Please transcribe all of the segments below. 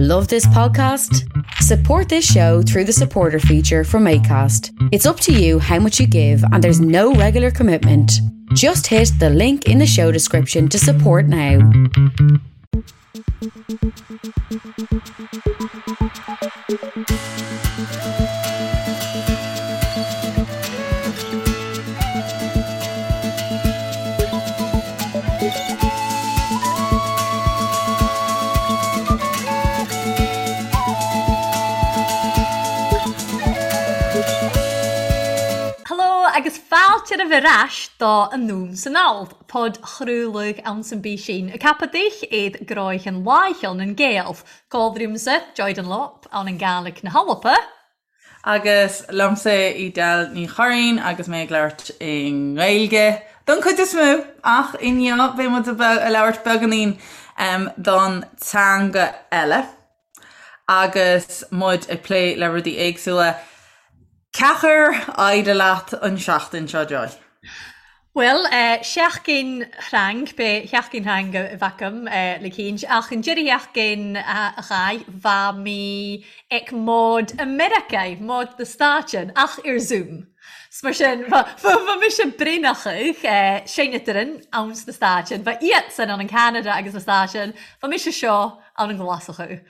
Love this podcast? Support this show through the supporter feature from ACAST. It's up to you how much you give, and there's no regular commitment. Just hit the link in the show description to support now. Heló agus fáilte romhaibh ar ais do Anonn 's Anall, podchraoladh anns an bPísín, ag ceapadh duich iad gráighean láicheal nan Gael, Codhrúmsa, Joy Dunlop, ann an Gàidhlig na hAlba. Agus liomsa Edel Ní Churraoin agus mé ag labhairt i nGaeilge don chuid is mó ach inniu beidh muid ag labhairt beagáinín don teanga eile agus muid ag plé le rudaí éagsúla. Cén chaoi ar éirigh leat an seachtain seo, Joy? Bhuel, seachtain threang, b'é sheachtain threang a bheadh agam le cinnt, ach an deireadh sheachtain a chaith, bha mi ag mod i Meiriceá, mod na Stáitean, ach ar Zoom. 'S mar sin, bha, bha mise braonachadh, seinntear ann sna Stáitean, bha iadsan ann in Ceanada agus na Stáitean, bha mise seo ann i nGlaschú.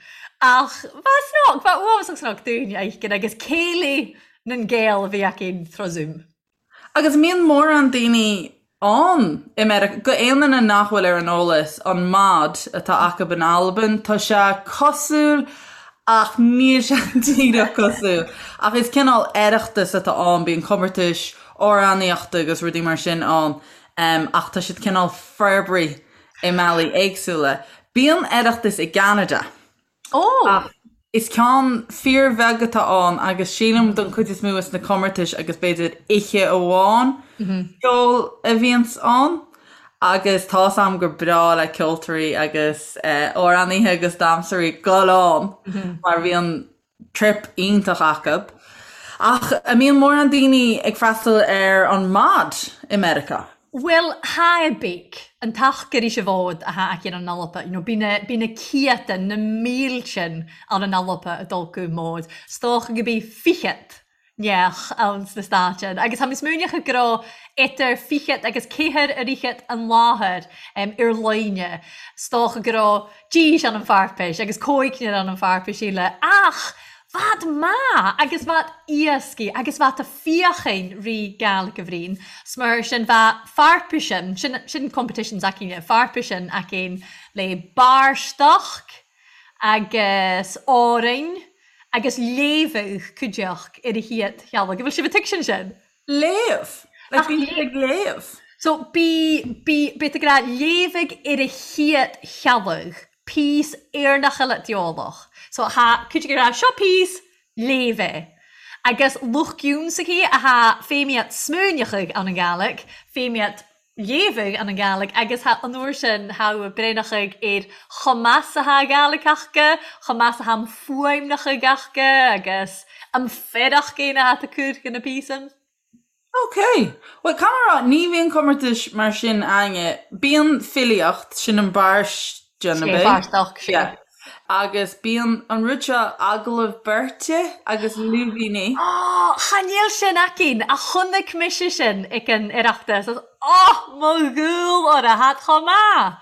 Ach bha snoc, bha uafásach snoc dúinn a fheiscint agus céilí nan Gael a bhí againn trá Zoom. Agus an mbíonn mórán daoine ann i Meiriceá, go aon duine nach bhfuil ar an eolas, an mod atá acu in Albain, tá sé cosúil ach níl sé díreach cosúil. Ach is cineál Oireachtas atá ann, bíonn comórtais amhránaíochta agus rudaí mar sin ann ach tá siad cineál forbraithe i mbealaí éagsúla. Bíonn Oireachtas i gCeanada. Ó! Is ceann fíorbheag atá ann agus sílim don chuid is mó is na comórtais agus b'fhéidir oíche amháin ceoil a bhíonns ann agus tá's a'm gur breá le ceoltóirí agus amhránaithe agus damhsóirí dul ann mar bhíonn trip iontach acu. Ach an mbíonn mórán daoine ag freastal ar an mod i Meiriceá? Bhuel, tha e beag, an t-achar ris a bhod a tha aici ann an Alba, you know, bidh na, bidh na ciadtan, na míltean ann an Alba a' dol gu mod, 's dòcha gu bi fichead neach ann sna Stàitean, agus tha mi smaoineachadh gu robh eadar fichead agus ceathair a fhichead an láthair ar loinne, 's dòcha gu robh dís ann an pharpais agus còigear ann an pharpais eile, ach Bhad math agus bhad iascaigh agus bhad a fíochain ri Gàidhlig a bhriain. 'S mar sin bha pharpaisean, sin, sin competition s'againne, pharpaisean againn le barrstoc agus Árainn agus léamhadh cuideachd ar a hiad theaghlaigh. An bhfuil sibh a' tuigsint sin? Léamh! Like bíonn siad ag léamh. So bí, bí, bí tú ag rá léamhadh ar a hiad theaghlaigh, píos Éireannach eile d'eolach. So tha cuid ag rá seo píos, léamh é. Agus lucht giúnsachaí a tha feidhmíocht smaoineachaidh ann an Gàidhlig, feidhmíocht léamhadh ann an Gàidhlig agus tha an uair sin tha braonachaidh ar chomh maith 's a tha Gàidhlig aca, chomh maith 's a tha am fuaimneachaidh aca agus am feadach céanna atá curtha na píosan. Ok. Bhuel, caithfidh mé a rá, ní bhíonn comórtais mar sin againne. Bíonn filíocht, sin an barrsdean, ab é? Barrstoc, sea. Yeah. Agus bíonn an rud seo, agallamh beirte agus lúibíní. Ó, chan eil sin againn, ach chonaic mise sin ag an Oireachtas agus ó, mo dhúil orra, thad chomh maith!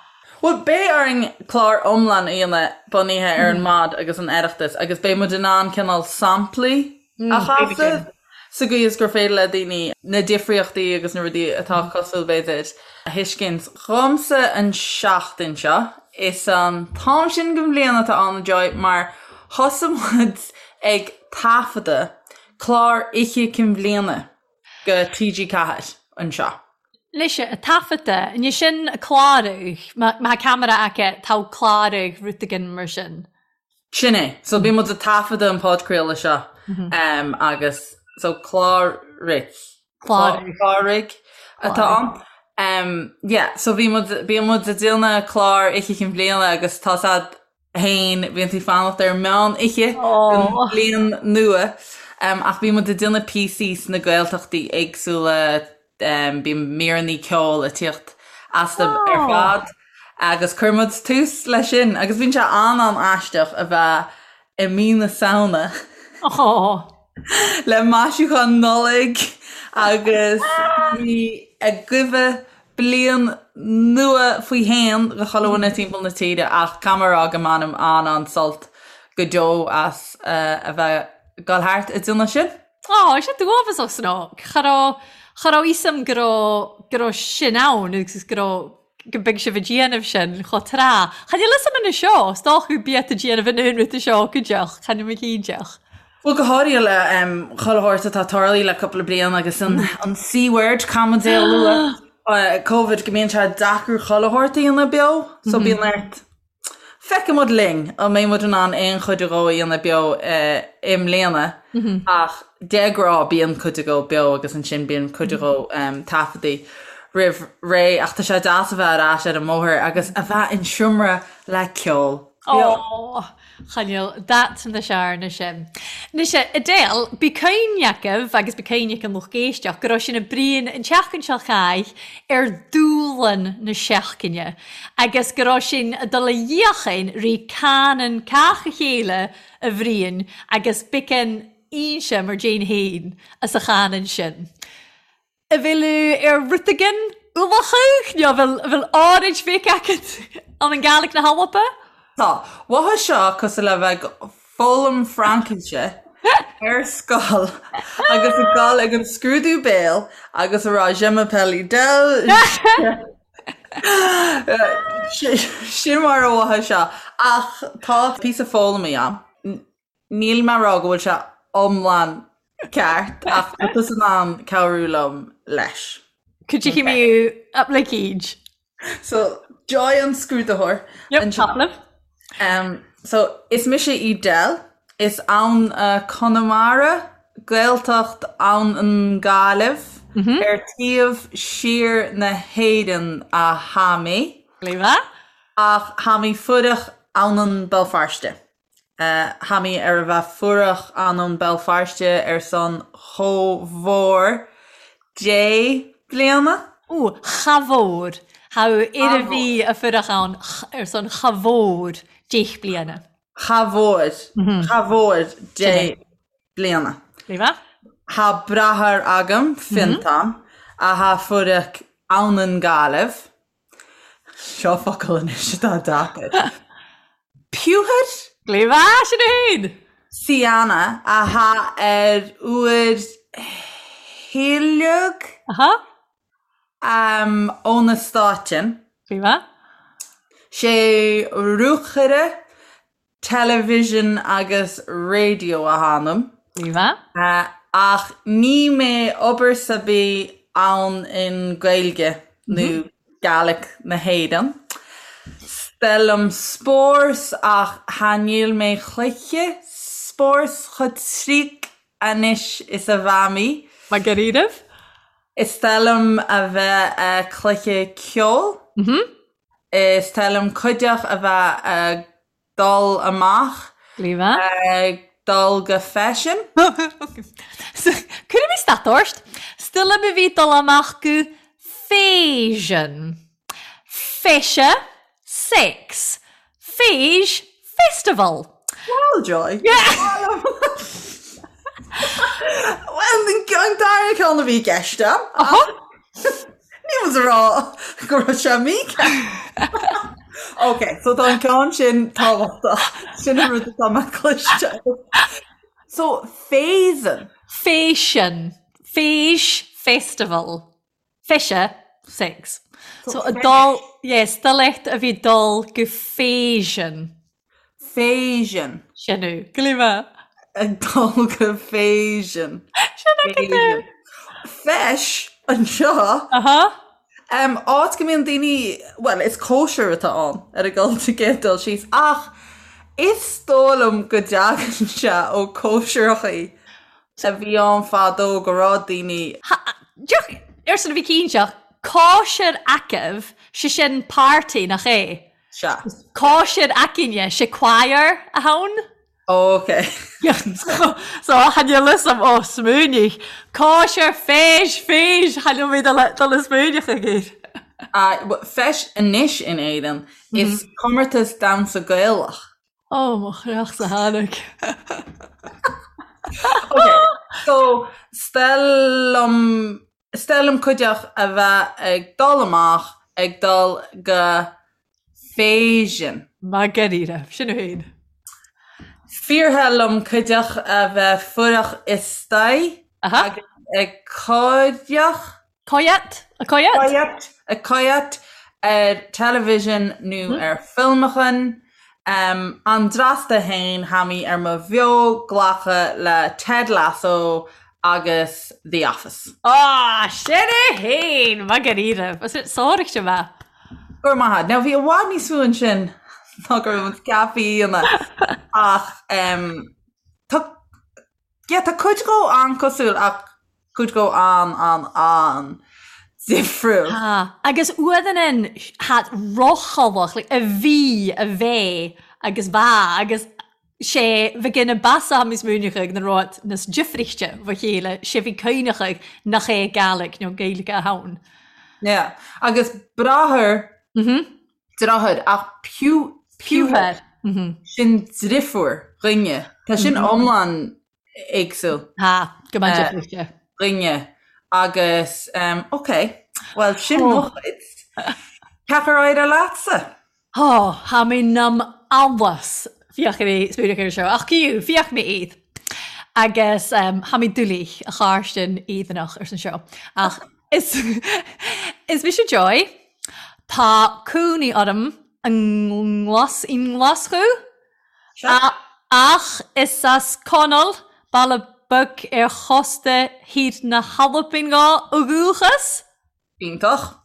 Bhuel, beidh orainn clár iomlán a dhéanamh bunaithe ar an mod agus an Oireachtas agus beidh muid in ann cineál samplaí a chasadh sa gcaoi is gur féidir le daoine na difríochtaí agus na rudaí atá cosúil, b'fhéidir, a thuiscint. Dhomsa an seachtain seo, is an t-am sin den bhliain atá ann, a Joy, mar thosaigh muid ag taifeadadh clár Oíche Cinn Bhliana go TG4 anseo. Leis a' taifeadta, an é sin a' clàradh, má tha camera aca, tá clàradh rud eigin mar sin. Sin é. So bíonn muid ag taifeadadh an podchraoladh seo agus so cláraigh. Cláraigh atá ann. Yeah, so bhí muid, bíonn muid ag déanamh clár Oíche Chinn Bhliana agus tá's a'd fhéin, bíonn tú ag fanacht ar meán oíche don bhliain nua. Ach bíonn muid ag déanamh píosaí sna Gaeltachtaí éagsúla, bíonn míreanna ceoil ag tíocht astu ar fad. Agus chuir muid tús leis sin agus bíonn sé an-an-aisteach a bheith i mí na Samhna le maisiúchán Nollag agus daoine ag guibhe bliain nua faoi shéan do chuile dhuine timpeall na tíre ach caithfidh mé a rá go mbainim an-an-sult go deo as a bheith ag dul thart ag déanamh sin. Á, sé dubhasach san ó. Cha raibh, cha raibh fhios a'm go raibh, go raibh sin ann agus go raibh, go mbeidh sibh ag déanamh sin chomh tráth. Cha níl fhios a'm anois seo, is dócha go bíodh ag déanamh an aon rud seo go deoch, cha níl mé cinnteach. Bhuel, go háirithe le chuile shórt atá tarlaithe le cúpla bliain agus an an C-word, caithfidh muid é a lua, Covid, go mbíonn sé deacair chuile shórt a dhéanamh beo, so bíonn ort Feicfidh muid linn an mbeidh muid in ann aon chuid dhó a dhéanamh beo i mbliana ach de ghnáth bíonn cuid dhó beo agus ansin bíonn cuid dhó taifeadtaí roimh ré ach tá sé deas a bheith ar ais ar an mbóthar agus a bheith in seomra le ceol beo. Ó, cha níl dat na searna sin. Anois, Edel, bí cuimhne agaibh agus bí cuimhne ag an lucht éisteach go raibh sinn ag bruíon an tseachtain seo chaith ar dúshlán na seachtaine agus go raibh sinn ag dul a dhíochain rí canann cách a chéile a bhruíon agus biceann ínse mar déin féin as a chanann sin. A bhfuil ar rud éigin ualachadh nó a bhfuil a bhfuil áirid bhéic agat an an Gàidhlig na hAlba? Tá. Mhothaigh seo cosúil le bheith ag foghlaim Fraincise ar scoil agus ag dul ag an scrúdú béil agus a rá Je m'appelle Edel. Sin mar a mhothaigh seo. Ach tá píosa foghlamtha agam. Níl mé ag rá go bhfuil sé iomlán ceart ach tá tusa in ann cabhrú liom leis. Could you hear me up like each? So, Joy an scrúdaitheoir. Yep, talamh. Um, so, is mise Edel, is ann uh, Conamara, Gaeltacht ann an Gaillimh, mm -hmm. ar taobh siar na hÉireann a tha mi. Léfa? Ach tha mi fuireach ann an Béal Feirste. Tha mi ar a bheith fuireach ann Béal Feirste ar son cho mhór deich bliana. Ó, cha mhór. Tha ar a bhí a fuireach ann ar son cha mhór deich bliana. Cha mhór. Cha mhór deich bliana. Léfa? Tha bràthair agam, Fionntán, a tha fuireach ann an Gàillimh. Seo focal anois atá deacair. Piúthar? Léfa, sin é féin! Siana a tha ar uair thuilleadh Aha. ó na Stáitean. Léfa. Sé rúchaire Television agus raidió a tha ionam. Léfa. Ach ní mé obair sa bith ann in Gaeilge nó Gaelic na hÉireann. 'S toil liom spórt ach tha níl mé cluiche spórt cho triuch anois is a bha mi. Mar gur Is toil liom a bheith a cluiche ceol. Is toil liom cuideach a bheith ag dul amach. Léfa. Ag dul go feisean. Cuirfidh mé stad ort. 'S toil liom a bhith dol amach gu fèisean. Feise, sex. Feis, festival. Well, Joy. Well, an dara ceann a bhí i gceist agam. Ní muid a rá go raibh sé mícheart. Ok, so tá an ceann sin tábhachtach. Sin an rud atá mé cloiste. So, fèisean. Fèisean. Feis festival. Feise, sex. So, a dul, yes, 's toil leat a bhith dol gu fèisean. Fèisean. Sin é. Glima. Ag dul go fèisean. Sin é go deo. Feis anseo. Aha. Um, áit go mbíonn daoine, well, is cóisir atá ann ar a gcéad sa gcéad dul síos, ach is dóigh liom go dtagann sé ó cóisireachaí a bhí ann fadó go raibh daoine. Ha, deoch, arsa na bhí cinnteach, cóisir agaibh, sé sin party, nach é? Sea. Cóisir againne, sé choir a tha ann? Ok. So, chan eil fhios a'm, ó, smaoinigh. Cóisir, feis, feis, chan eil mi dol a smaoineachadh air. Feis anois in Éirinn is comórtas damhsa Gaelach. Ó, mo chreachsa tháinig. Ok, so 's toil liom, 's toil liom cuideachd a bheith ag dul amach, ag dul go fèisean. Math gu-rìreach, sin e fhèin. Fíortha liom cuideachd a bheith fuireach istaigh agus ag còireach. Coyet? A coyet? Coyet, a coyet ar television nó ar filmeachan. An drasta fhéin tha mi ar mo bheo-ghlacadh le Ted Lasso agus The Office. Á, sin é fhéin! Math gu-rìreach. Sòraichte math. Go raibh maith agat. Now bhí i bhfad níos mó ansin ná go raibh muid ceaptha a dhéanamh ach tá yeah tá cuid dhó an-cosúil ach cuid dhó an-an-an difriúil. Tá. Agus uaireanna tha rothalach like a bhí, a bheith agus bha agus sé bhí na basa níos múineachadh na rud nas difrichte bha chéile, sé bhí cuimhneachadh nach é Gaelic nó Gaeilge a ann. Yeah. Agus bráthair, deartháir, ach piúthar, sin driofúr dhuine. Tá sin iomlán éagsúil. Tá, go maith difrichte. Dhuine. Agus, ok, bhuel sin mo chuid. Cad chuir éirigh leatsa? Ó, tha mi nam allas fiach mi smaoineach air seo, ach ciú, fiach mi iad. Agus tha mi doiligh a chàirstin Èireannach air san seo. Ach is is mise Joy. Tá cónaí orm i nGlas i nGlaschú. Ach is as Connall, baile beag ar chósta thiar na hAlban ó dhúchas. Iontach.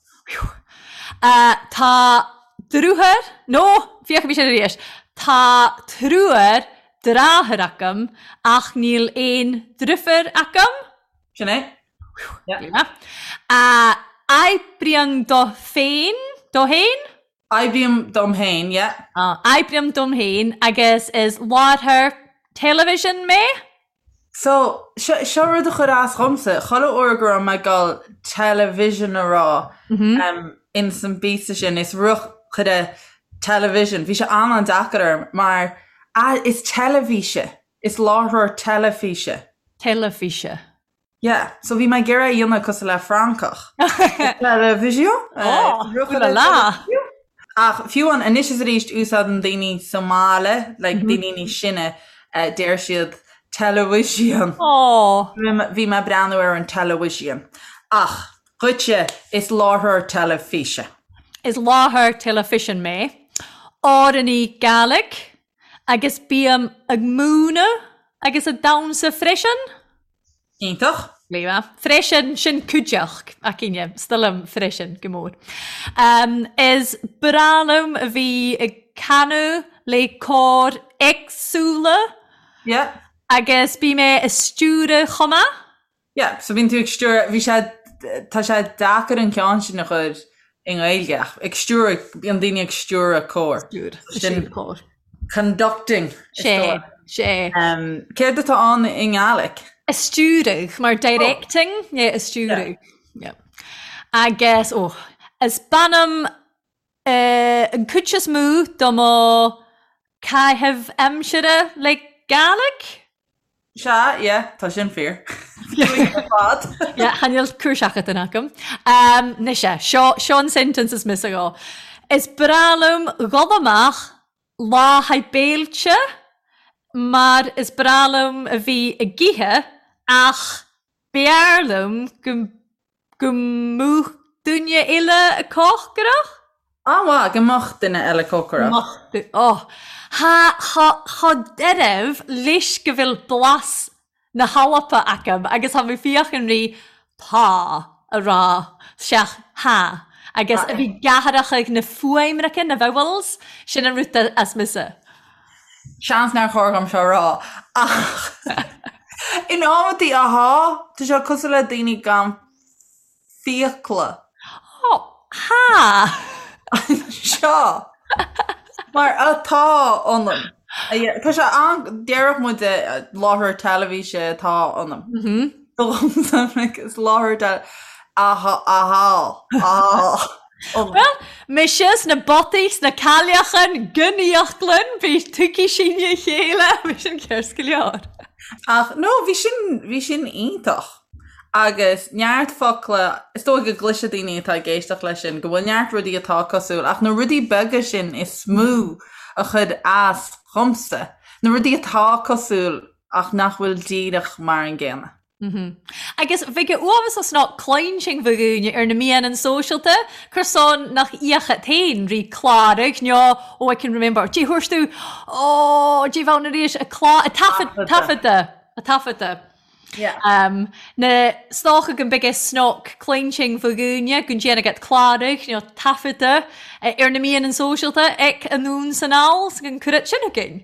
Tá driotháir, nó, féachfaidh mé sin arís, tá triúr deartháir agam ach níl aon driofúr agam. Sin é. Oibrím do féin, do fhéin? Oibrím dom féin, yeah. Oibrím dom féin agus is láithreoir television mé. So, seo, seo rud a chuir as dhomsa, chuile uair go raibh mé ag dul television a rá um, ins an bpíosa sin, is ruchaire television, bhí sé an-an-deacair orm mar ah, is teilifíse, is láithreoir teilifíse. Teilifíse. Yeah, so bhí mé ag iarraidh a dhéanamh cosúil le Francach. Television? Oh, ooh la la! Ach fiú amháin anois is arís úsáideann daoine sa mbaile, like daoine níos sine, deir siad television. Oh! Bhí mé ag breathnú ar an television. Ach dhuitse, is láithreoir teilifíse. Is láithreoir teilifíse mé. Amhránaí Gàidhlig agus bím ag múineadh agus ag damhsa freisin. Iontach. Léa. Freisin, sin cuideachd, againne, 's toil leam freisin go mór. Is breá liom a bhí ag canadh le cóir éagsúla. Yeah. Agus bím ag stiúradh chomh maith. Yeah, so bíonn tú ag stiúradh, bhí sé, tá sé deacair an ceann sin a chur i nGaeilge ach ag stiúradh, bíonn daoine ag stiúradh cór. Stiúr, stiúradh cór. Conducting. Sé, sé. Céard atá ann i nGaelic? A stiúradh, mar directing, yeah, a stiúradh. Yeah. Agus, oh, is bainim an cuid is mó do mo caitheamh aimsire le Gàidhlig. Sea, yeah, tá sin fíor. Ar fad. Yeah, chan eil cùrseachadh agam. Um, mise, seo, seo an sentence is mise go. Is breá liom dhul amach lá thaidh béilte mar is breá liom a bhí ag ithe ach b'fhearr liom go Go mbeadh duine eile ag cócaireacht? An-mhaith, go mbeadh duine eile cócaireacht. Mbeadh, oh. Tha, tha, tha dearbh leis go bhfuil blas na h-Alba agam agus tha mi feuchainn ri tá a ràdh 'seach tha agus a bhith ag athrachaidh na fuaimreacha, na vowels, sin an rud as mise. Seans nár chóir dhom seo a rá ach in amantaí ahá, tá sé cosúil le daoine gan fiacla. Ó, há! Seo mar atá ionam. Tá sé an, déarfadh muid láithreoir teilifíse atá ionam. Is láithreoir teilifíse, ahá, ahá, ahá. Bhuel, mise sna bataí, sna cailleachan, gon íochlann, bhí tuigfidh sinn a chéile, bhí sin ceart go leor. Ach no, bhí sin, bhí sin iontach. Agus neart focla, is dóigh go gcloisfidh daoine atá ag éisteacht leis sin go bhfuil neart rudaí atá cosúil, ach na rudaí beaga sin is mó a chuir as dhomsa, na rudaí atá cosúil ach nach bhfuil díreach mar an gcéanna. Agus bheadh a uaimh as ná cluinsinn bho dhúinne ar na meáin sóisialta, cur san nach íocadh féin rí cláraigh nó oh I can remember, dé thabhairt tú, oh dé bheann arís, a clá, a taifead, taifeadta, a taifeadta. Yeah. Na stoca go mbeidh snoc cluinsinn bho dhúinne go ndéanfaidh at cláraigh nó taifeadta ar na meáin sóisialta ag anonn 's anall 's go gcuireadh sin againn.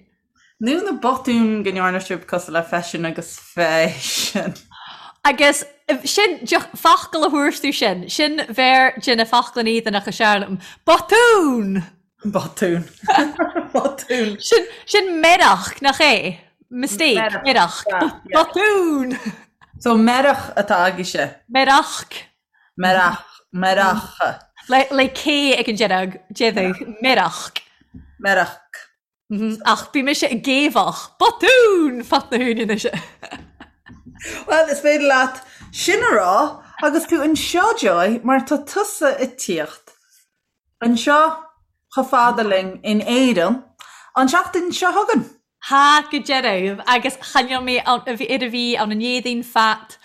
Nó na botúin go ndearna sibh cosúil le feisean agus feisean. Agus sin focal a thabhairt tú sin, sin bheir de na foclain Éireannacha is fearr liom. Botún! Botún. Botún. Sin, sin meirach, nach é? Mistake, meirach. Botún! So meirach atá agaibhse? Meirach. Meirach, meirach. Le, le K ag an deireadh, déarfadh, meirach. Meirach. Ach bhí mise ag géabhach. Botún! Fat na húine anois. Bhuel, is féidir leat sin a rá agus tú anseo, Joy, mar tá tusa ag tíocht anseo chomh fada linn in Éirinn an tseachtain seo chugainn. Tá go deimhin, agus choinneoidh mé ar a bhí ann an Éadaoin fat.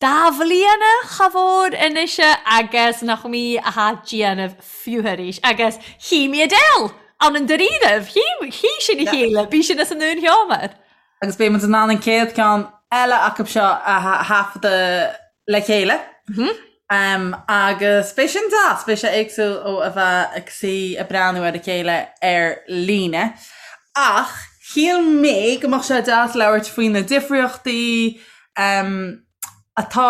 Dá bhliana cha mhór anois agus nach mí athá déanamh fiú arís agus chí mé Adele ann an dáiríribh, chí, chí sinn a chéile, bí sin as an ndún sheomar. Agus beidh muid in ann an chéad ceann eile acu seo a thaifeadadh le chéile. Agus beidh sin deas, beidh sé éagsúil ó a bheith ag suí ag breathnú ar a chéile ar líne. Ach shíl mé go mbeadh sé deas labhairt faoi na difríochtaí, atá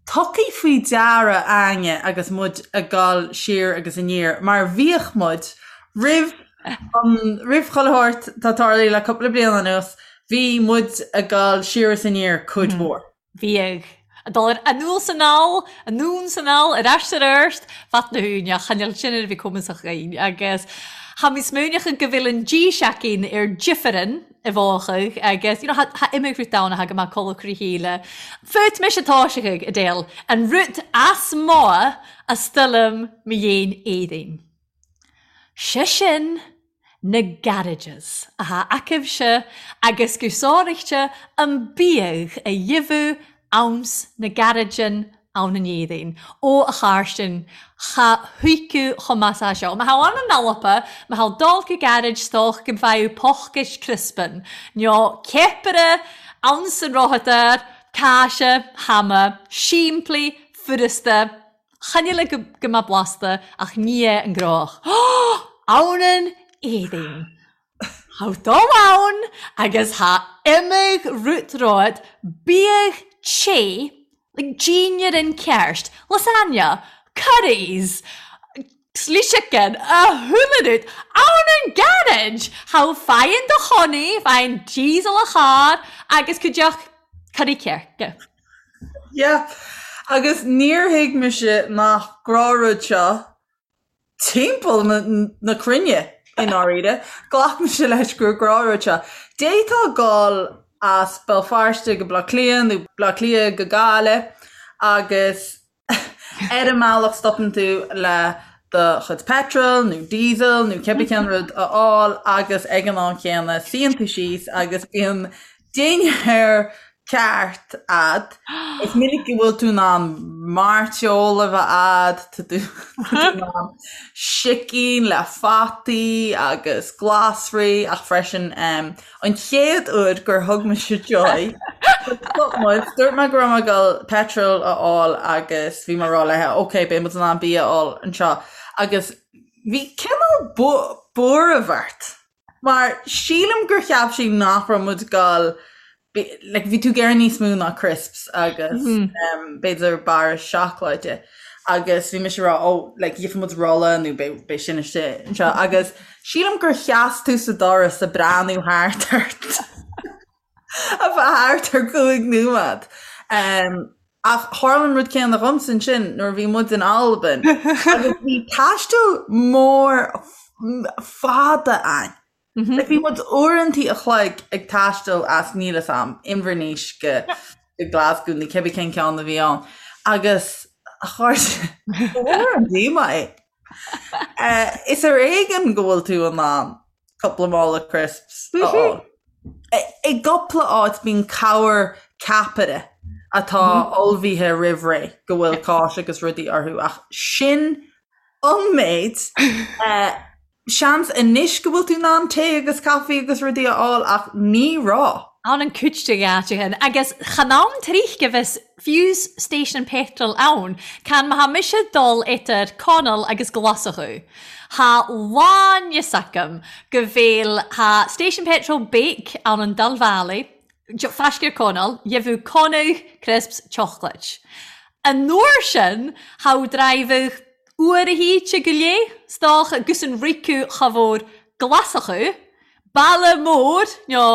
tugtha faoi deara a'inne agus muid ag dul siar agus aniar, mar bhíodh muid roimh an, roimh chuile shórt atá tarlaithe le cúpla bliain anuas, bhí muid ag dul siar is aniar cuid mhór. Bhíodh. Ag dul ar anall 's anall, anonn 's anall, ar ais 's ar árst, fat na húine, choinneáil sin ar a bhí cumasach againn agus tha mi smaoineachadh go bhfuil an dís againn ar difearann i bhfáthadh agus you know tha imigh rud ann a tha go maith codladh trí chéile. Fút mise toiseachadh, Adele, an rud as mo a stoilm mo dhéin éadain. 'Se sin na garages atá acaibhse agus go sáraíte an biadh a gheibheadh anns na garageann ann an Éadaoin. Ó, a Chairstin, cha thuigfeadh chomh maith 's seo. Má thá ann an Alba, má thá dul go garage 's dócha go bhfaigheadh pochais criospan, nó ceapaire anns an rothadóir, cáise, hama, simplí, furasta, chan eile go go mbeadh blasta ach ní é an gnách. Ann an Éadaoin. Thá dul ann agus thá imigh rút romhat, bíodh te, like dinnéar an ceart, lasagna, curries, chili chicken, a chuile rud, ann an garage! Thá faigheann do chónaí, faigheann diesel a charr agus cuideachta curry ceirce. Yeah, agus níor thuig mise nach gnáthrud seo timpeall na cruinne, i ndáiríre. Ghlac mise leis gur gnáthrud seo. D'fhéadfá dul as Béal Feirste go Baile Átha Cliath nó Baile Átha Cliath go Gaillimh agus ar an mbealach stopann tú le do chuid petrol nó diesel nó cibé cén rud a fháil agus ag an am chéanna suíonn tú síos agus bíonn dinnéar ceart a'd. Is minic go bhfuil tú in ann mairteoil a bheith a'd, tá tú in ann sicín le fataí agus glasraí ach freisin an chéad uair gur thug mise Joy stop muid, dúirt mé go raibh mé ag dul petrol a fháil agus bhí mé ag rá léi ok beidh muid in ann bia a fháil anseo agus bhí cineál buaireamh ort. Mar sílim gur cheap sí nach raibh muid ag dul, like bhí tú ag iarraidh níos mó ná crisps agus b'fhéidir barra seacláide agus bhí mise ag rá oh like gheobhaidh muid rolla nó beidh sin istigh anseo agus sílim gur sheas tú sa doras ag breathnú thart ort ar feadh thart ar chúig nóiméad. Ach tharla an rud céanna dhomsa ansin nuair a bhí muid in Albain agus bhí taisteal mór fada ann. Like bhí muid uaireantaí a chloig ag taisteal as níl 'fhios a'm, Inbhir Nis go Glasgow nó cibé cén ceann a bhí ann agus a chairde, ba mhór an díomá é. Is ar éigean go bhfuil tú in ann cúpla mála crisps a fháil. I gcúpla áit bíonn corr ceapaire atá ullmhaithe roimh ré go bhfuil cáis agus rudaí orthu ach sin an méid. Seans anois go bhfuil tú in ann tae agus caife agus rudaí a fháil ach ní raibh. Ann an cuid de dh'áiteachain agus chan ann trích go bhfios fiú's station petrol ann can má tha mise dul idir Conall agus Glaschú tha lán-fhios agam go bhfuil tha station petrol beag ann an dal bhealaigh faisc ar Conall gheibheadh conadh crisps chocolate. An uair sin tha driveadh uair a híte go léith 's dócha gus an ricu cha bhfuair Glaschú Baile mór nó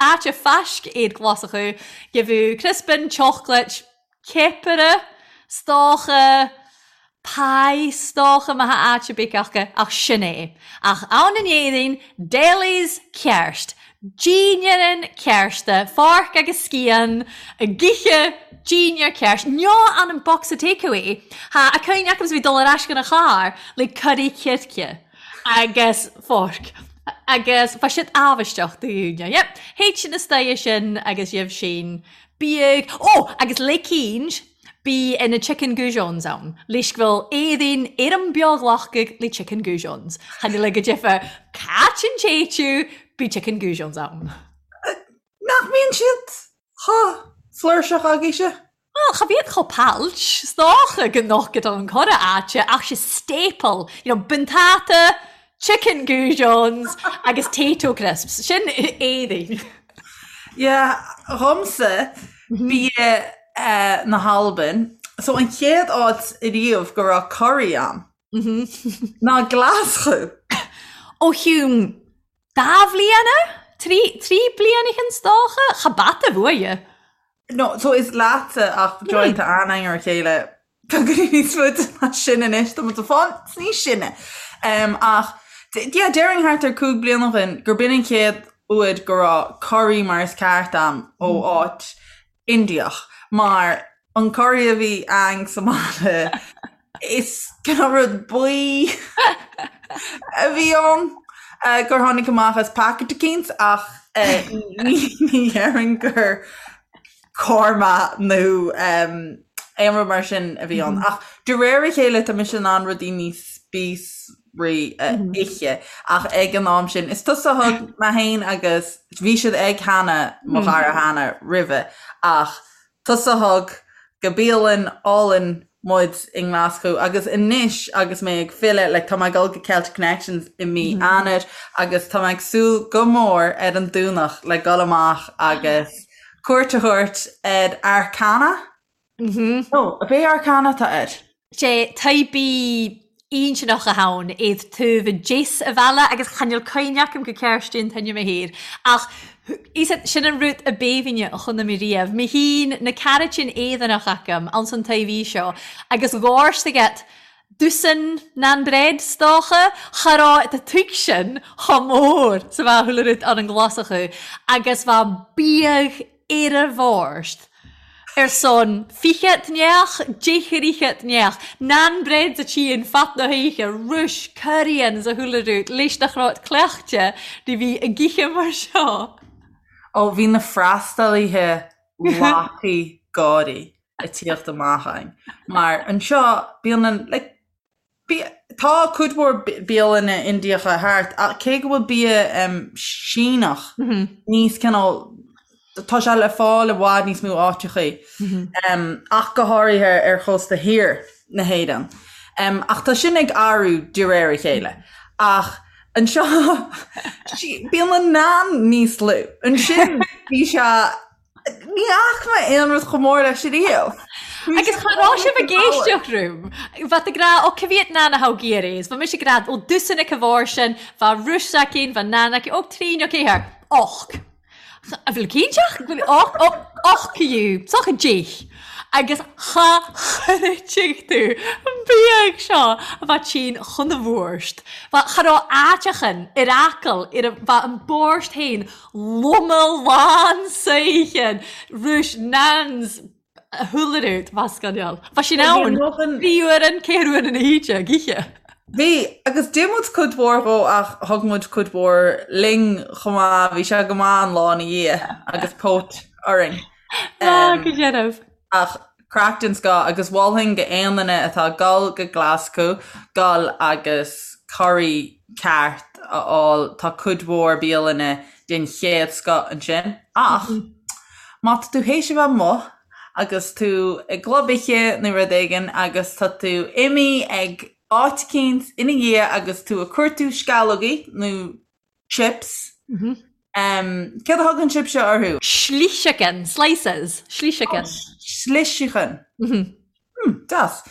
áit a faisc iad Glaschú, gheibheadh criospan, chocolate, ceapaire, 's dócha, pie, 's dócha má tha áit ar bith acu, ach sin é. Ach ann in Éirinn, delis ceart, dínnéarann cearta, fork agus scian, ag ithe dínnéar ceart, nó ann an bocsa takeaway, tha a cuimhne agam 's bhí dul ar ais chun a charr le curry circe. agus fork agus bha siad amhaisteach do dhaoine. Yep, théid sin istoighe sin agus gheibh sin biadh, ó agus le cínn bí ina chicken goujons ann, leis go bhfuil Éirinn ar an beoghlacadh le chicken goujons. Chan eil go deimhin cait an téitiú bí chicken goujons ann. Nach mbíonn siad chomh flúirseach agaibhse? Bhuel, cha bhíod chomh pailt, 's dócha go nochad an cora áite ach 'se staple, you know, buntáta, chicken goujons agus Tayto crisps, sin Éirinn. Yeah, dhomsa, bia na hAlban, so an chéad áit ariamh go raibh curry ann ná Glaschú. Ó Hume, dá bhliana? Trí bliana 's dócha? Cha bata bhuaidhe. No, so is leatsa ach joint anainn ar a chéile beagáinín níos faide ná sin anois, tá muid ag fáil níos sine. Um, ach yeah, déarfainn thart ar 5 bliana ó shin gur b'in an chéad uair go raibh curry mar is ceart a'm ó áit Indiach mar an curry a bhí a'inn sa mbaile Is cineál rud buí a bhí ann gur tháinig amach as packet eicínt ach ní dhéarfainn gur korma nó aon rud mar sin a bhí ann. Ach de réir a chéile tá mise in ann rudaí níos spíosraí a ithe ach ag an am sin is tusa a thug mé féin agus bhí siad ag Hannah, mo chara Hannah roimhe ach Tusa a thug go bialann álainn muid i nGlaschú agus anois agus mé ag filleadh, like tá mé ag dul go Celtic Connections i mí Eanáir agus tá mé ag súil go mór ar an Domhnach le dul amach agus cuairt a thabhairt ar Arcana. No, ab é Arcana atá air? Sé taibí intinneach a tha ann iad taobh deas a bhealaigh agus chan eil cuimhne agam go ceart an t-ainm a thair ach is sin an rud a b'aoibhinne a chonaic mé riamh. Mé féin na caraitín Éireannach agam anns an taobh seo agus ghàirt agat dosaen nan bread 's dócha, cha raibh do tigh sin chomh mór 's a bheadh chuile rud ann an Ghlaschú agus bheadh biadh ar a bhord ar son fichead neach, deich fhichead neach, nan bread a tchíonn fad na hoíche, ruis, curraíonn 's a chuile rud, leis nach raibh cleachtadh ní bhí ag ithe mar seo. Ó, bhí na freastalaithe lapaí gáirí ag tíocht amach againn, mar anseo bíonn an, like, Tá cuid mhór bialanna Indiacha thart, ach cé go bhfuil bia Síneach níos cineál, tá sé le fáil i bhfad níos mó áiteachaí, ach go háirithe ar chósta thiar na hÉireann. Ach tá sin ag athrú de réir a chéile. Ach anseo, bíonn an naan níos lú. Ansin bhí sé Ní fhaca mé aon rud chomh mór leis ariamh. Agus cha raibh sibh ag éisteacht rium. Bheadh ag rá, ó ca mhiad nan a tha thu ag iarraidh? Bha mise ag rá, ó dosaen aici bharr sin, bha ruis aici, bha nan aici, ó trín, ó céathair, och. A bhfuil cinnteach? Och, och, och, you, socha deich. Agus cha chreidfidh tú an bia seo a bheith tinn chun a bhórst. Bha cha raibh áiteachan ar fhocal ar a bha an bórst féin loma lán saoithin rúis nans húlarút bha scannáil. Bha sin ann bhí uair an céir uair ina híde ag oíche. Bhí, agus d'ith muid cuid mhór dhó ach thug muid cuid mhór linn chomh maith, bhí sé go maith an lá ina dhiaidh agus póit orainn. Ah, go deimhin. Ach craic den scoth agus mholfainn go aon duine atá ag dul go Glaschú dul agus curry ceart a fháil, tá cuid mhór bialanna den chéad scoth ansin. Ach má tá tú théis a bheith amuigh agus tú i gclub oíche nó rud éigin agus tá tú imithe ag áit eicínt ina dhiaidh agus tú ag cuartú sceallógaí nó chips. Céard a thugann sibhse orthu? Sliseachain, slices, sliseachain. Sliseachain. Deas.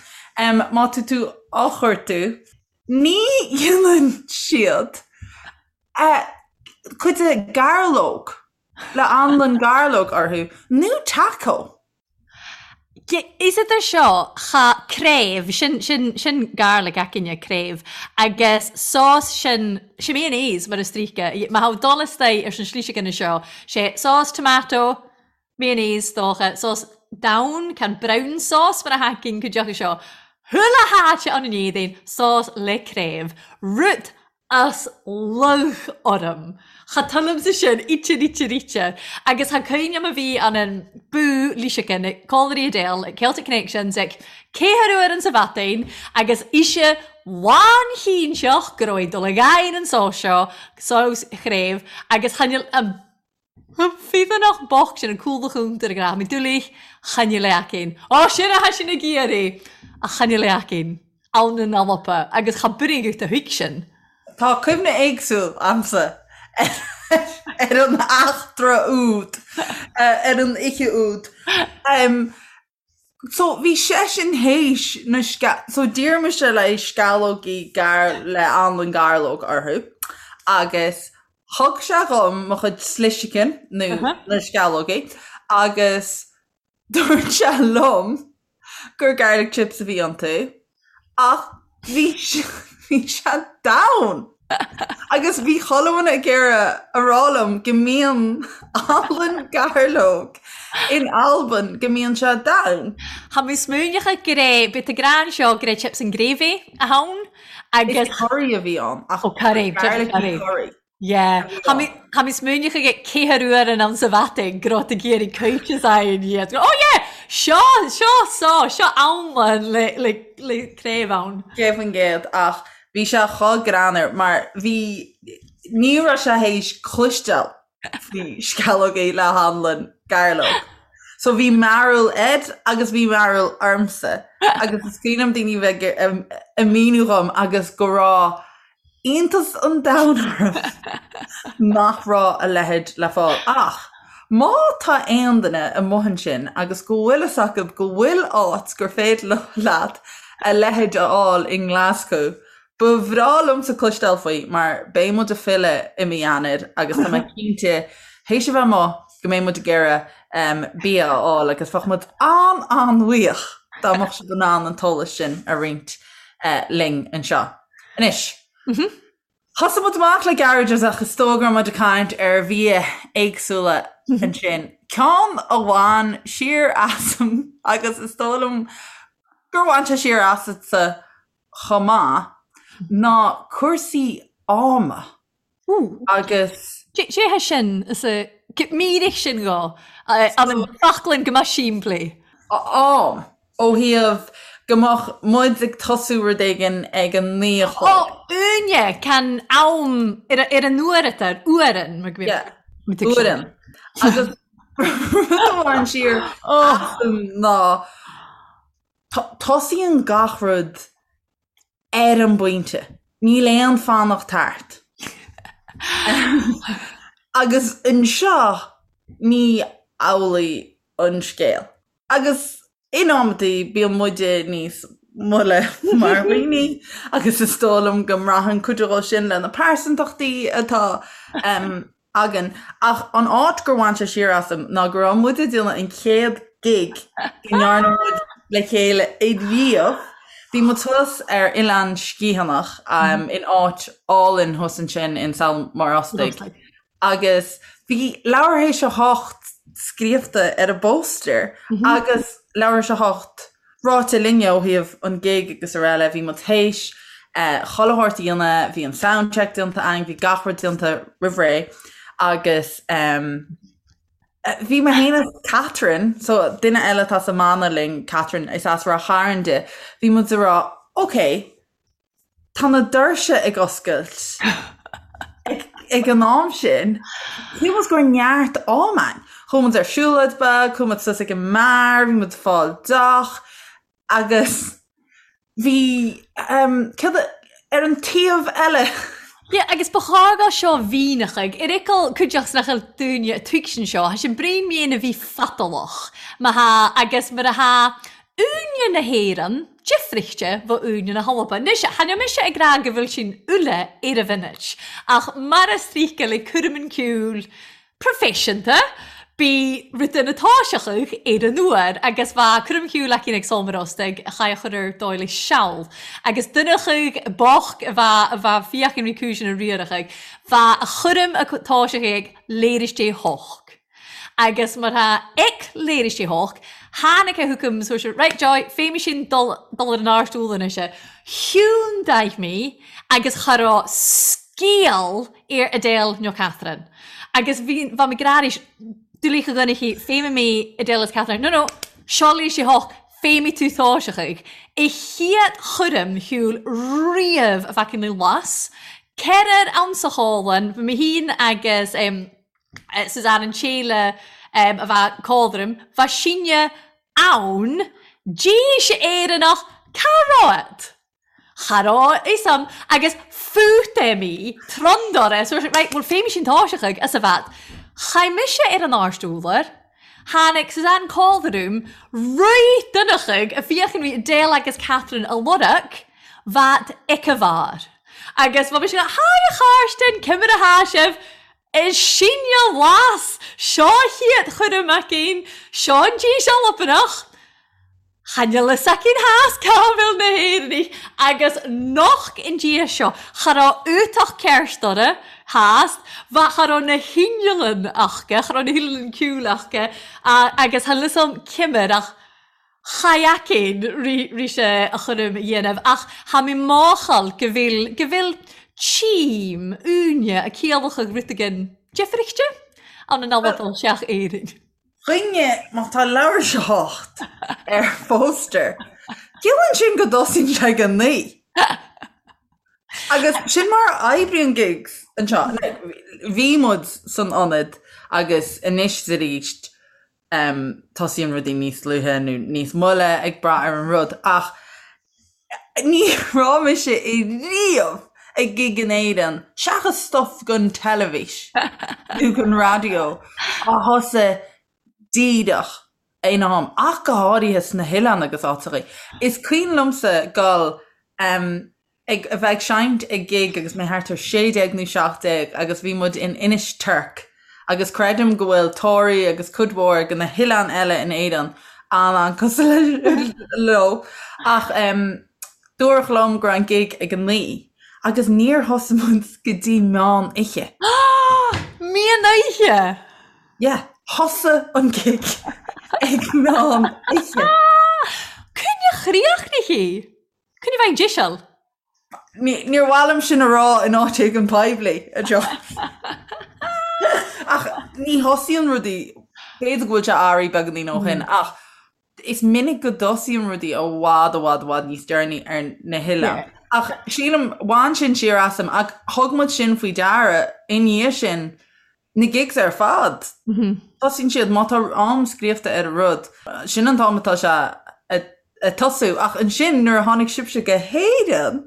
Má tá tú á chuartú, ní dhéanann siad cuid de gairleog le anlann gairleog orthu nó taco. Is idir seo cha craobh, sin, sin, sin garlic againne, craobh, agus sós sin, sin mayonnaise mar is stríoca, má tha dul istaigh ar an sliseachain seo, sé sós tomato, mayonnaise dócha, sós donn, can brown sauce mar a tha againn cuid acu seo, chuile háit ann in Éirinn, sós le craobh, rud as lugh orm. Cha tuillimse sin, ite, ite, ite. Agus tha cuimhne am a bhí an an bú Líseachan ag Colliery Adele ag Celtic Connections ag ceathair uair an sa Bhatain agus ise lánchinnteach go raibh ag dul ag aghaidh an sós seo, sós chraobh, agus chan fhuil an Feadánach bocht sin an cúl a chúntar ag rá, mi dúlaigh, chan fhuil aicinn. Ó, sin a tha sin ag iarraidh! Ach chan fhuil aicinn. Ann in Alba, agus cha b'fhreagairt a thuig sin. Tá cuimhne éagsúil a'msa ar an eachtra úd, ar an oíche úd. So bhí seisean théis na sce-, so d'iarr mise le sceallógaí gar le anlann gairleog orthu agus thug sé dhom mo chuid sliseachain nó na sceallógaí agus dúirt sé liom gur garlic chips a bhí iontu ach bhí bhí sé donn! Agus bhí chuile dhuine ag iarraidh a rá liom go mbíonn anlann gairleog in Albain, go mbíonn sé donn. Tha mi smaoineachadh gur é, bith a grean seo gur é chips and gravy a th' ann agus. Is curry a bhí ann ach Oh curry, chips and curry. curry. Yeah. Tha mi, tha mi smaoineachadh ag ceathair uair in ann sa Bhatain go raibh tú ag iarraidh coitis a fhaghain iad. Oh yeah! Seo, seo, so, seo anlann le, le, le craobh ann. 100% ach Bhí sé chomh greannmhar mar bhí, ní raibh sé théis cloisteáil faoi sceallógaí le hanlann gairleog. So bhí mearbhall air agus bhí mearbhall ormsa agus is cuimhin liom daoine bheith ag míniú dhom agus go raibh iontas an domhain orm nach raibh a leithéid le fáil. Ach má tá aon duine amuigh ansin agus go bhfuil fhios acu go bhfuil áit gur féidir leat a leithéid a fháil i nGlaschú. Ba bhreá liomsa cloisteáil faoi mar beidh muid ag filleadh i mí Eanáir agus tá mé cinnte, théis a bheith amuigh, go mbeidh muid ag iarraidh bia a fháil agus bheadh muid an-an-bhuíoch dá mbeadh sibh in ann an t-eolas sin a roinnt linn anseo. Anois. Thosaigh muid amach le garages ach is dóigh go raibh muid ag caint ar bhia éagsúla ansin. Ceann a bhain siar asam agus is dóigh liom gur bhain sé siar asatsa chomh maith ná cúrsaí ama agus. Cé hé sin? Is é mírich sin dhó. An foclann go mbeadh simplí. Am. Ó thaobh go mbeadh muid ag tosú rud éigin ag a naoi a chlog. Ó, Áine, can am ar an uair atá ar uairean, mar go mbíonn muid ag Uairean. Agus rud a bhain siar asam ná tosaíonn gach rud ar an bpointe. Níl aon fanacht thart. Agus anseo ní amhlaidh an scéal. Agus in amantaí bíonn muide níos moille mar dhaoine agus is dóigh liom go mbraitheann cuid dhó sin le na pearsantachtaí atá againn. Ach an áit gur bhain sé siar asam ná go raibh muid ag déanamh an chéad. gig go ndearna muid le chéile riamh. Bhí muid thuas ar Oileán Sgitheanach in áit álainn thuas ansin in Sabhal Mòr Ostaig agus bhí Leathuair Théis a hOcht scríobhta ar an bpóstaer agus Leathuair Théis a hOcht ráite linne ó thaobh an gig agus araile. Bhí muid théis chuile shórt a dhéanamh, bhí an soundcheck déanta againn, bhí gach rud déanta roimh ré agus Bhí mé féin is Catherine, so duine eile atá sa mbanna linn, Catherine, is as Ráth Chairn di, bhí muid ag rá, ok, tá na doirse ag oscailt ag an am sin, shíl muid go raibh neart am againn. Chuaigh muid ar siúlóid beag, chuaigh muid suas ag an mbeár, bhí muid ag fáil deoch, Agus bhí, céard a, ar an taobh eile. Yeah, agus ba chóir go seo mhíneachaidh, ar fhicheall cuideachta nach bhfuil dúinne a tuigsin seo, tha sin braon mian a bhí fatalach, má tha, agus mar a tha uaine na hÉireann difrichte bho uaine na hAlba. Anois, chan eil mise ag rá go bhfuil sin uile ar a mhinit, ach mar is tríce le cúram an ceoil, proifisiúnta, bí rud ina toiseachadh ar an uair agus bha cúram shiúil aici ag Sabhal Mòr Ostaig a chaith a chur ar dóigh le seal agus duineachadh bocht a bha a bha fiachain rí cúiseanna riarachadh bha a chúram a toiseachadh ag léiris dé hoc agus mar tha ic léiris dé hoc tháinig a thucam so sé right Joy féimidh sin dul dul ar an áirt úll anois Hiúndaigh mé agus cha raibh scéal ar Adele nó Catherine. Agus bhí, bha mi ag ràdh aris, dulidh a dhuine féimidh mi Adele is Catherine. No, no, seo leis a hocht, féimidh tú toiseachadh. A chéad chúram shiúil riamh a bheadh ina las. Ceithrear ann sa chólann, bhí mé féin agus Suzanne an tséile a bheadh códram, bha sinne ann, dís Éireannach, cá raibh? Cha raibh a fhios a'm agus fút é mí, trondóir so right, bhuel féimidh sin toiseachadh as a bheat. Chaith mise ar an áirt úlar, tháinig Suzanne Calderoom, rith duineachadh a fiachan rí Adele agus Catherine a lorg, bheat ic a bharr. Agus bha mise hi a Chairstinn, cimir a tha sibh? Is sinne las, seo a chéad chuireadh maicín, seo an dís Albanach. Chan fhuil fhios aicinn theas cá bhfuil na hÉireannaigh agus noch in diaidh seo cha raibh útach ceart orra theas, bha cha raibh na hinneallan aca, cha raibh na hinneallan ceoil aca agus chan fhuil fhios a'm cimir ach cha fheacainn ri sé a chúram a dhéanamh ach tha mi máchail go bhfuil, go bhfuil tím, uaine, a ciallacha rud againn difrichte ann an Albain seach Éirinn. Dhuine, má tá leathuair théis a hocht ar phóstaer, ciallaíonn sin go dtosaíonn sé ag a naoi. Agus sin mar a oibríonn gigs anseo. Bhí muid san ionad agus anois is arís tosaíonn rudaí níos luaithe nó níos moille ag brath ar an rud ach Ní raibh mise riamh ag gig in Éirinn, seachas stuff don teilifís nó don raidió, a thosaigh díreach ina am, ach go háirithe sna hoileáin agus áiteachaí. Is cuimhin liomsa dul ag a bheith ag seinnt ag gig agus mé thart ar 16 nó 17 agus bhí muid in Inis Toirc Agus creidim go bhfuil Toraigh agus cuid mhór de na hoileáin eile in Éirinn an-an-cosúil leo. Ach dúradh liom go raibh an gig ag a naoi agus níor thosaigh muid go dtí meán oíche. Meán oíche? Yeah, thosaigh an gig ag meán oíche. Coinne chríochnaithe? Coinne bheith díseal? Níor mhaith liom sin a rá in áit éigin poiblí, a John. Ach ní thosaíonn rudaí, b'fhéidir go bhfuil sé athraithe beagáinín ó shin, ach is minic go dtosaíonn rudaí i bhfad, i bhfad, i bhfad níos deireanaí ar na hoileáin. Ach sílim, bhain sin siar asam, ach thug muid sin faoi deara i ndiaidh sin, Na gigs ar fad. Tosaíonn siad, má tá am scríofa ar an rud, sin an t-am atá sé ag tosú. Ach ansin nuair a tháinig sibhse go hÉirinn!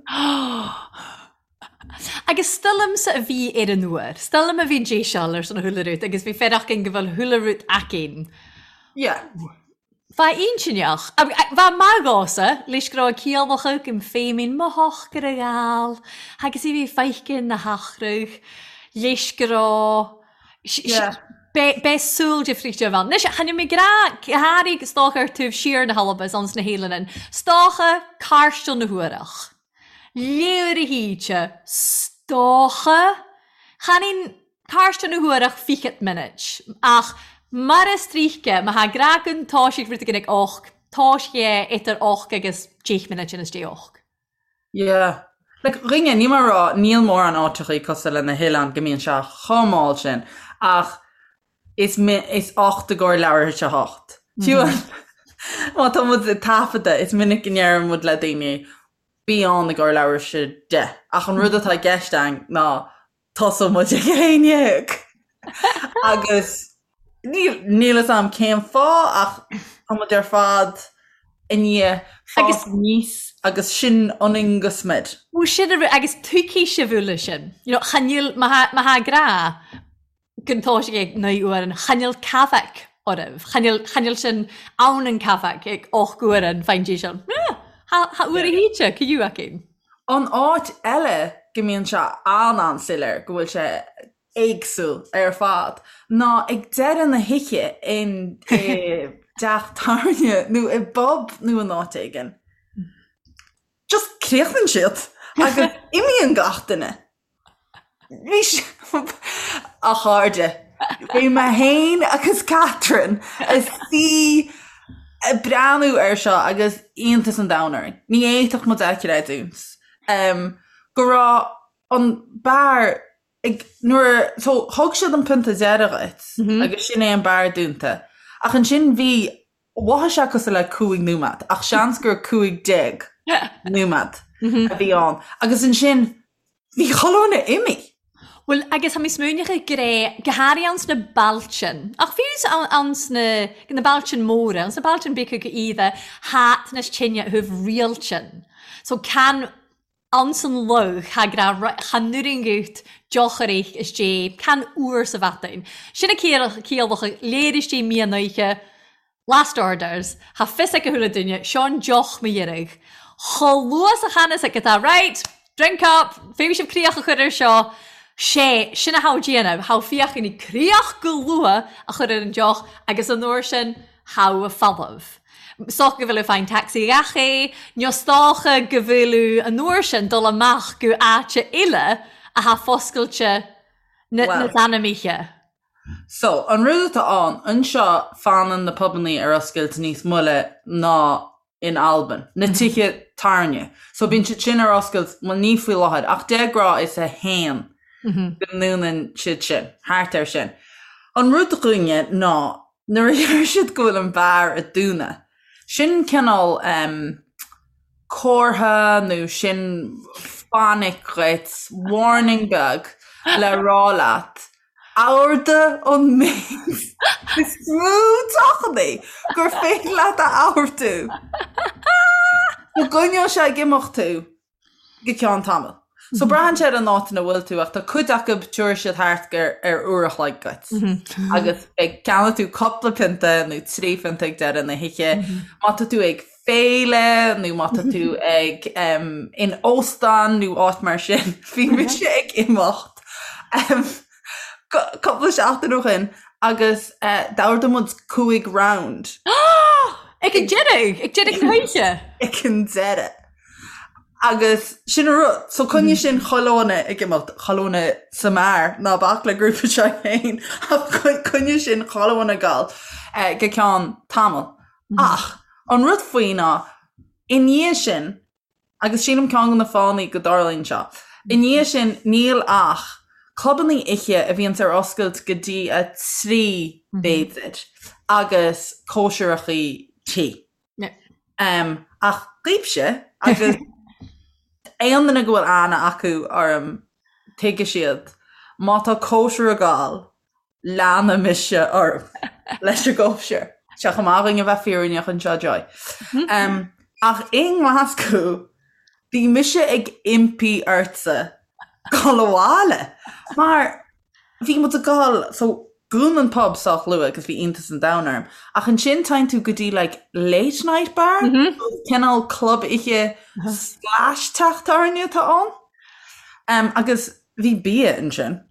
Agus 's dòigh leamsa a bhí air an uair. 's dòigh leam a bhí dèiseal air son a chuile rud agus bhí fearacht againn go bhfuil chuile rud againn. Yeah. Bha inntinneach. Bha math dhomhsa, leis go raibh ciallacha agam féin mo shochar a ghabhail agus í bhí feicthe na heachradh leis go raibh. Beidh saol difríochta ann. Anois, chan eil mi ag ràdh, gu hàraidh 's dòcha air taobh siar na h-Alba 's anns na h-Eileanan, 's dòcha càrsteal na huaireach. Leabhar a híte, 's dòcha. Chan eil càrsteal na huaireach fichead minute, ach mar as tríce, ma tha ag ràdh gun toisigh rud eigin ag och, toisg e idir och agus deich minute anns deich och. Yeah. Like, dhuine, níl mé ag rá, níl mórán áiteachaí cosúil le na hoileáin go mbíonn sé chomh mall sin, ach is is ocht i gcomhair leathuair théis a hocht. Fiú má tá muid ag taifeadadh, is minic go ndeireann muid le daoine, bí ann i gcomhair leathuair théis a deich. Ach an rud atá i gceist againn ná tosóidh muid ag a haon dhéag. Agus níl níl fhios a'm cén fáth ach tá muid ar fad i ndiaidh fás aníos agus sin ionainn go smior. Bhuel sin an rud agus tuigfidh sibh uile sin. You know, chan eil má tha má tha ag ràdh gun toisigh ag naoi uairean, chan eil cafach oraibh. Chan eil chan eil sin ann an cafach ag och uairean fàin dè sin. Yeah, tha tha uair a hìte, caidh againn. An áit eile go mbíonn sé an-an-soiléir go bhfuil sé éagsúil ar fad ná ag deireadh na hoíche in i dteach tábhairne nó i bpub nó in áit éigin. Just críochnaíonn siad agus imíonn gach duine. Bhí sé, a chairde, bhí mé féin agus Catherine ag suí ag breathnú air seo agus iontas an domhain orainn. Ní fhéadfadh muid a chreidiúint go raibh an beár ag, nuair, so thug siad an pionta deiridh dhuit agus sin é an beár dúnta. Ach ansin bhí, mhothaigh sé cosúil le 5 nóiméad ach seans gur 15 nóiméad a bhí ann. Agus ansin Bhí chuile dhuine imithe. Bhuel, agus tha mi smaoineachadh gur e gu hàraidh anns na bailtean, ach fiù anns na, na bailtean mòra, anns na bailtean beaga gu iadha, tha teinneas tine a thaobh riailtean. So can anns an loch tha ag ràdh right, chan urranghadh deoch a rith is dè can uair sa mhadain. Sin a ciallachadh léiris dè mian oidhche, Last orders, Tha fios ag a chuile duine, seo an deoch mo dheireadh. Chomh luath 's a channas ag atá right, drink up, féadfaidh sibh críoch a chur air seo. Sé, sin a tha déanamh, tha fiachain críoch go luath a chur ar an deoch agus an uair sin, tha a folamh. 'S dócha go bhfuil fáin taxi gach é, nó 's dócha go bhfuil an uair sin dul amach go áite eile a tha foscailte na Well. na oíche. So, an rud atá ann, anseo fanann na pubannaí ar oscailt níos moille ná in Albain, na tithe tábhairne. So bíonn siad sin ar oscailt, bhuel ní faoi láthair, ach de ghnáth is a haon go ndúnann siad sin, thart air sin. An rud dhúinne ná nuair a deir siad go bhfuil an beár ag dúnadh, sin cineál em comhartha nó sin fainic dhuit, warning beag le rá leat Ordaigh an méid is mó deochannaí gur féidir leat a ordú. Go gcoinneoidh sé ag imeacht tú go ceann tamaill. So braitheann sé ar an áit ina bhfuil tú ach tá cuid acu tabharfaidh siad thart ar uair a chloig duit. Agus beidh ceannóidh tú cúpla pionta nó trí phionta ag deireadh na hoíche. Má tá tú ag féile nó má tá tú ag in óstán nó áit mar sin, bhí mise ag imeacht cúpla seachtain ó shin agus d'ordaigh muid cúig round. Ag an deireadh! Ag deireadh na hoíche! Ag an deireadh. Agus sin an rud. So coinneoidh sin chuile dhuine ag imeacht, chuile dhuine sa mbeár, ná bac le grúpa seo féin, ach coinneoidh sin chuile dhuine ag gabháil go ceann tamaill. Ach an rud faoi ná, i ndiaidh sin, agus sílim ceann de na fáthanna go dtarlaíonn seo, i ndiaidh sin níl ach clubannaí oíche a bhíonns ar oscailt go dtí a trí b'fhéidir agus cóisireachaí tí. Ach daoibhse agus aon duine go bhfuil aithne acu orm tuigfidh siad, má tá cóisir ag gabháil, leanfaidh mise orm leis an gcóisir. Tá sé chomh maith dhúinn a bheith fírinneach anseo, Joy. Ach i nGlaschú, bhí mise ag impí ortsa dul abhaile mar bhí muid ag dul, so dhún an pub sách luath agus bhí iontas an domhain orm, ach ansin téann tú go dtí like late night bar, cineál club oíche slash teach tábhairne atá ann. Agus bhí bia ansin.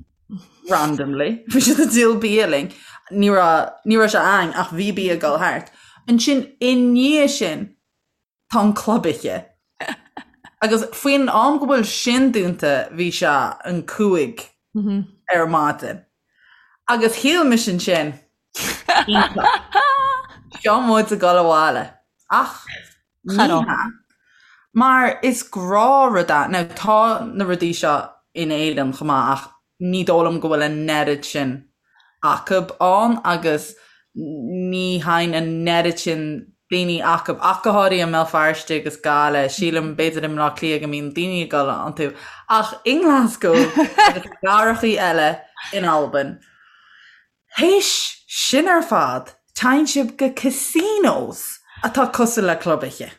randomly, bhí siad ag díol bia linn. Ní raibh, ní raibh sé ann ach bhí bia ag dul thart. Ansin i ndiaidh sin tá an club oíche. Agus faoin am go bhfuil sin dúnta bhí sé an 5 ar maidin. Agus shíl mise ansin, iontach, seo muid ag dul abhaile. Ach ní hea. Mar is gnáthrud é. Now tá na rudaí seo in Éirinn chomh maith ach ní dóigh liom go bhfuil an oiread sin acub ann agus ní théann an oiread sin daoine acub, ach go háirithe i mBéal Feirste agus Gaillimh, sílim, b'fhéidir i mBleá Cliath go mbíonn daoine ag dul iontu, ach i nGlaschú agus i gcathrachaí eile in Albain. Théis sin ar fad, téann sibh go casinos atá cosúil le club oíche.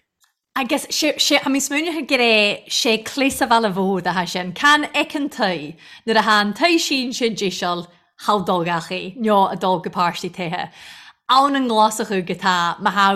Agus sé, sé, tha mi smaoineachadh gur é, sé cleas a' bhaile mhór athá sin. Can fheiceann tu nuair a tha an toigh sínte deiseal thall dul gach aoi, neo a dul go páirtí toighe. Ann an nGlasachú go tá, má tha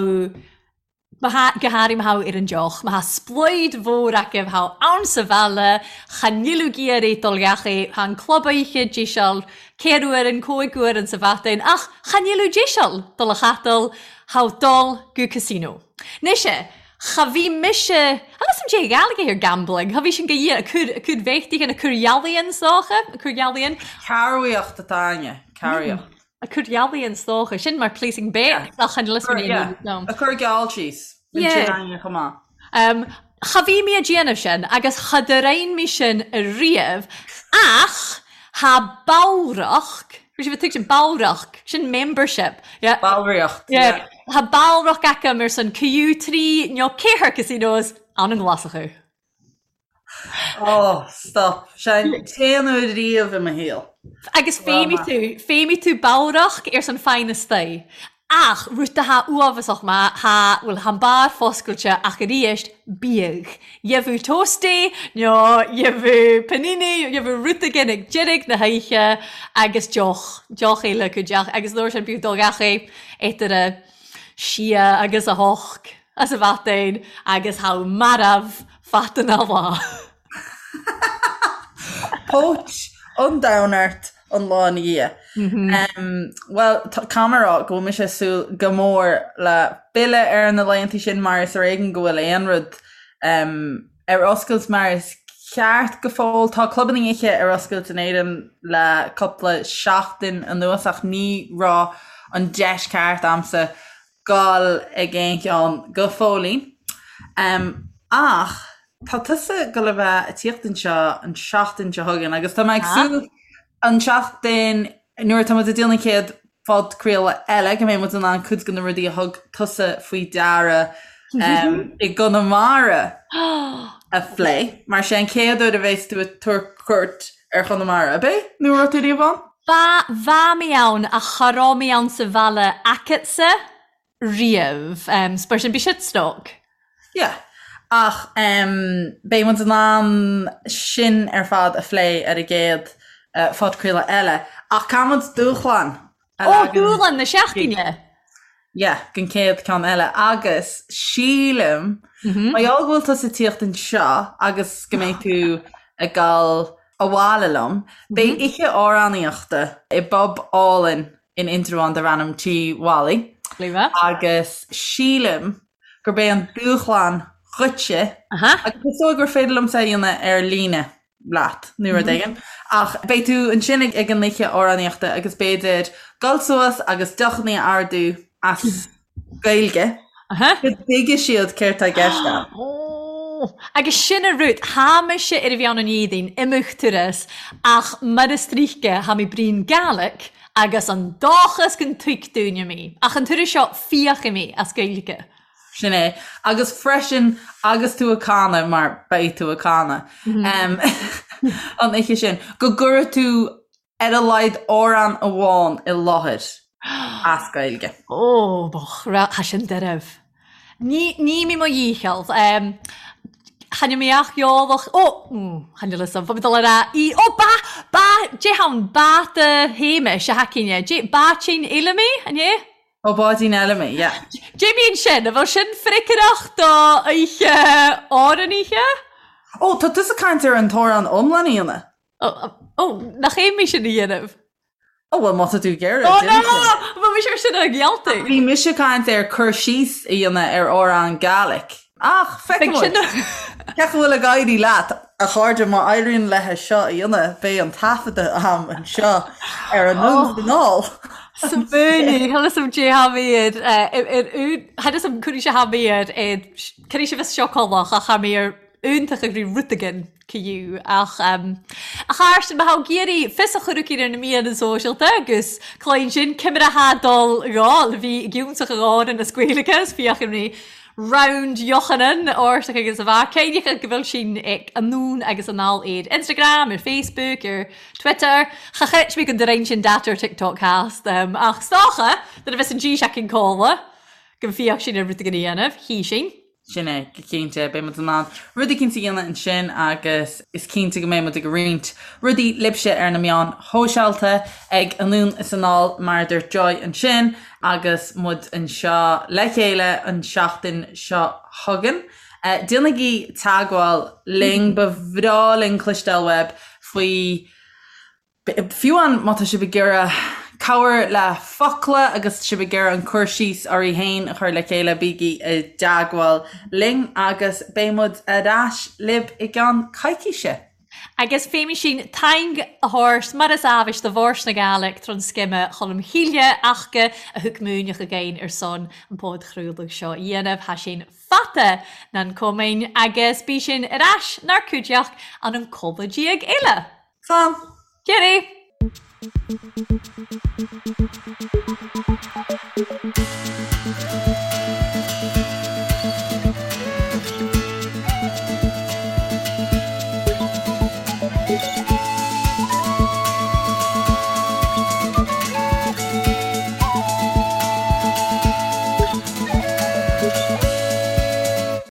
má tha, go háirithe má tha ar an deoch, má tha sploid mhór acu, tha ann sa bhaile, cha níl ag iarraidh dul gach aoi, tha an club oíche deiseal, ceithre uair an cúig uair an sa mhaidin, ach cha níl deiseal dul a chaitheamh, tha dul go casino. Mise, Cha bhí mise, agus an dé Ghaeilge ar gambling, cha bhí sin go dhia, a cur, a cur bhéachtaigh, a cur ealaíon 's dócha, a cur ealaíon. Cabhraíocht atá againne, cabhraíocht. A cur ealaíon 's dócha, sin mar placing bet, ach chan fhios mé ní Yeah, a cur geall síos, bíonn sin againne chomh maith. Um, cha bhí mé a déanamh sin agus cha do-rein mé sin ariamh ach tha ballracht, Bhí sibh ag tuigsin ballracht, sin membership. Yeah. Ballraíocht, yeah. Yeah. Tha ballracht aca ar son Q3 nó ceathair casinos ann an nGlasachú. Oh, stop. Sé an t-aon uair riamh i mo shaol. Agus feidhmigh tú, feidhmigh tú ballracht ar son feadh na staí. Ach rud atá uafásach má thá, bhuel, thá an beár foscailte ach aríst, bíodh. Gheibheadh toastie nó gheibheadh panini, gheibheadh rud éigin ag deireadh na hoíche agus deoch, deoch eile acu deoch agus an uair sin bíodh dul gach é idir a sia agus a hocht as a mhaidin agus thá marbh fada na lá. Póit an domhain ort an lá ina dhiaidh. Bhuel, caithfidh mé a rá go bhfuil mise ag súil go mór le filleadh ar na laethanta sin mar is ar éigean go bhfuil aon rud ar oscailt mar is ceart go fóill. Tá clubanna oíche ar oscailt in Éirinn le cúpla seachtain anuas ach ní raibh an deis ceart a'msa dul ag aon cheann go fóillín. Ach tá tusa ag dul a bheith ag tíocht anseo an seachtain seo chugainn agus tá mé ag súil an seachtain nuair atá muid ag déanamh an chéad phodchraoladh eile go mbeidh muid in ann cuid de na rudaí a thug tusa faoi deara i gConamara a phlé. Mar sé an chéad uair a bheas tú ag tabhairt cuairt ar Chonamara, ab é? Nó an raibh tú riamh ann? Ba, bha mi ann ach cha robh mi ann sa bhaile acatsa riamh. 's mar sin bidh siad stoc. Yeah. Ach beidh muid in ann sin ar fad a phlé ar an gcéad phodchraoladh eile. Ach caithfidh muid dúshlán a Ó, leagan dúshlán na seachtaine! Yeah, don chéad ceann eile. Agus sílim, mar gheall go bhfuil tusa ag tíocht anseo agus go mbeidh tú ag dul abhaile liom, beidh oíche amhránaíochta i bpub álainn in Indreabhán darb ainm Tí Mholly. Agus sílim gurb é an dúshlán dhuitse, agus is dóigh gur féidir liomsa é a dhéanamh ar líne leat nó rud éigin, ach beidh tú ansin ag an oíche amhránaíochta agus b'fhéidir dul suas agus deochanna a ordú as Gaeilge go dtuigfidh siad céard tá i gceist agat. Agus sin a rud, tha mise air a bhith ann an Iardain, imeacht turas, ach mar is tríce, tha mi bruidhinn Gàidhlig agus an dòchas gun tuig daoine mi. Ach an turas seo, fiachfaidh mi as Gaeilge. Sin é. Agus freisin, agus tú ag canadh, mar beidh tú ag canadh an oíche sin, go gcuirfidh tú ar a laghad amhrán amháin i láthair as Gaeilge. Ó, mo chara, tha sin deirbh. Ní, ní mi mo dhícheall. Chan eil mi ach eòlach, ó, chan eil fhios a'm, bha mi dol a ràdh í, ó, ba, ba, dè tha ann, bàda Shéamais a tha againne, dè, báidín Fheilimí, an é? Ó Báidín Fheilimí, yeah. Dè bhíonn sin? An bhfuil sin freagrach do oíche amhránaithe? Ó, tá tusa ag caint ar an t-amhrán iomlán a dhéanamh. Ó, nach é mé sin a dhéanamh? Ó bhuel má tá tú ag iarraidh. Ó no! Bhí mise ar sin ag gealltaigh. Bhí mise ag caint ar cur síos a dhéanamh ar amhrán Gaelic. Ach feicfidh muid. Cén chaoi a bhfuil ag éirí leat, a chairde, má éiríonn léithe seo a dhéanamh, beidh an taifeadadh a'm anseo ar Anonn 's Anall. Smaoinigh, tha fhios a'm dè tha mi air, ar, tha fhios a'm conas a tha mi air, conas a bheas seo colach ach tha mi air iontach ag rí rud-again cu ach a Chairsten má tha ag iarraidh fios a chur aici ar na meadhanan sóisealta agus cloinn sin ciamar a tha dol dhó le bhí giúnsach a dh'árann as Gaeilge is fiach an rí round Yochanan ártach agus a bheith céineacha go bhfuil sin ag anonn agus anall ar Instagram, ar Facebook, ar Twitter. Cha chreid mé go dtarraing sin data ar TikTok cast ach 's dócha nuair a bheas an dís aicinn codladh go bhfiach sin ar rud éigin a dhéanamh, hí sin. Sin é, go cinnte, beidh muid in ann rud éicint a dhéanamh ansin agus is cinnte go mbeidh muid ag roinnt rudaí libhse ar na meáin shóisialta ag Anonn is Anall mar a dúirt Joy ansin agus muid anseo le chéile an seachtain seo chugainn. Déanaigí teagmháil linn, ba bhreá linn cloisteáil uaibh faoi Fiú amháin má tá sibh ag iarraidh cabhair le focla agus sibh ag iarraidh an cur síos oraibh féin a chur le chéile, bígí i dteagmháil linn agus beidh muid ar ais libh i gceann coicíse. Agus fé sin taing a thabhairt mar is ábhais do Bhòrd na Gàidhlig tron Sgime Cholm Chille ach-ga a thug múineadh againn ar son an podchraoladh seo a dhéanamh. Tha sinn fata nan comain agus bí sinn ar ais 'nár cuideachd ann an codladh eile. Slán! Cheerio!